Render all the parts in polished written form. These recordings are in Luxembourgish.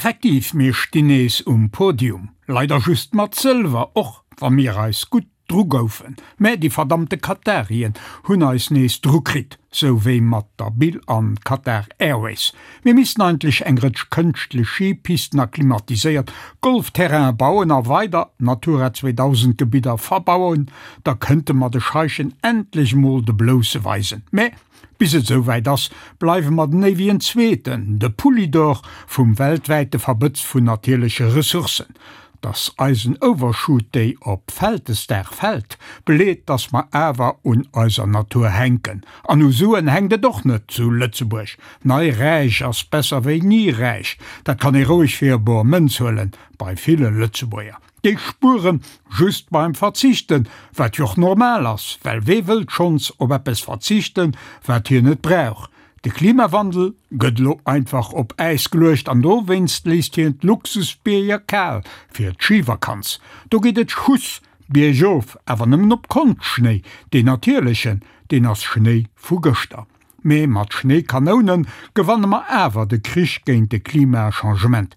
Effektiv, mir stinn nees um Podium. Leider just mat Sëlwer, och wa mir eis gutt dru goufen. Mä déi verdammte Katarien hunn eis nees dru kritt, sou wéi mat der Bill an Qatar Airways. Mir missten eigentlech eng Rëtsch kënschtlech Skipisten a klimatiséiert Golfterrainen bauen a weider Natura 2000 Gebidder verbauen, da kënnte mer de Scheichen endlech mol de Blousse weisen. Mä Bis et esou wäit ass, bleiwe mer den éiwegen Zweeten, de Poulidor vum weltwäite Verbëtz vun natierleche Ressourcen. Dass eisen Overshoot Day op Vältesdag fält, beleet, dass mer awer un eiser Natur hänken. An u Suen hänkt et och net zu Lëtzebuerg. Nei räich ass besser wéi ni räich, dat kann ee roueg fir bor Mënz huelen bei ville Lëtzebuerger. Déi spueren just beim Verzichten, wat jo och normal ass, well wee wëllt schonns op eppes verzichten, wat hien net brauch? De Klimawandel gëtt elo einfach op Äis geluecht an dowéinst léisst hien d'Luxusbierger kal fir d'Schivakanz. Do geet et Schuss biergof, awer nëmmen op Konschtschnéi, deen natierlechen, deen ass Schnéi vu gëschter. Mee mat Schnéikanounen gewanne mer awer de Krich géint de Klimachangement.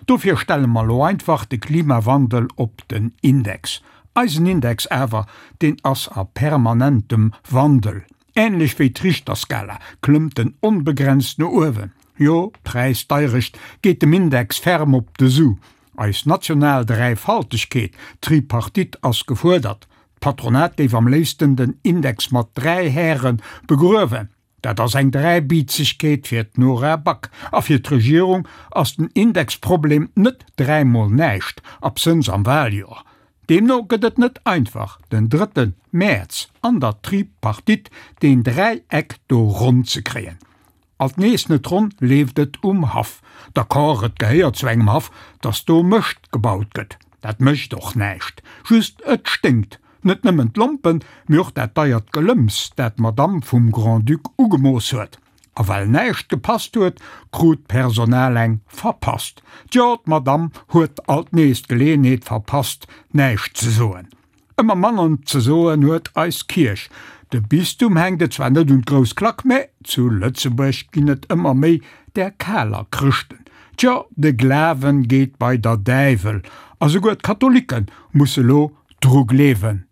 Dofir stelle mer lo einfach de Klimawandel op den Index. Eisen Index awer, deen ass a permanentem Wandel. Ähnlech wéi d'Richterskala klëmmt en onbegrenzt no uewen. Jo, d'Präisdeirecht geet dem Index ferm op de Su. Eis national Dräifaltegkeet, Tripartite, ass gefuerdert. D'Patronat géif am léifsten den Index mat 3 Häre begruewen. Dat ass eng Dräibiizegkeet fir d'Nora Back. A fir d'Regierung ass den Indexproblem net dräimol näischt, absënns am Wahljoer. Deemno gëtt et net einfach, den drëtte Mäerz an der Tripartite deen Dräieck do ronn ze kréien. Alt nees net ronn leeft et um Haff. D'accord, et gehéiert zu engem Haff, dass do Mëscht gebaut gëtt. Dat mécht och näischt. Just et sténkt. Net nëmmen d'Lompen, mee och dat deiert Gelëmps, dat d'Madame vum Grand-Duc ugemooss huet. A well näischt gepasst huet, krut d'Personal eng verpasst. Tjo, d'Madame huet alt nees d'Geleeënheet verpasst, näischt ze soen. Ëmmer manner ze soen huet eis Kierch. De Bistum hänkt et zwar net un d'grouss Klack, mä zu Lëtzebuerg ginn et ëmmer méi där kaler Chrëschten. Tjo, de Glawen geet bei der Däiwel, a souguer d'Katholikke musse lo dru gleewen.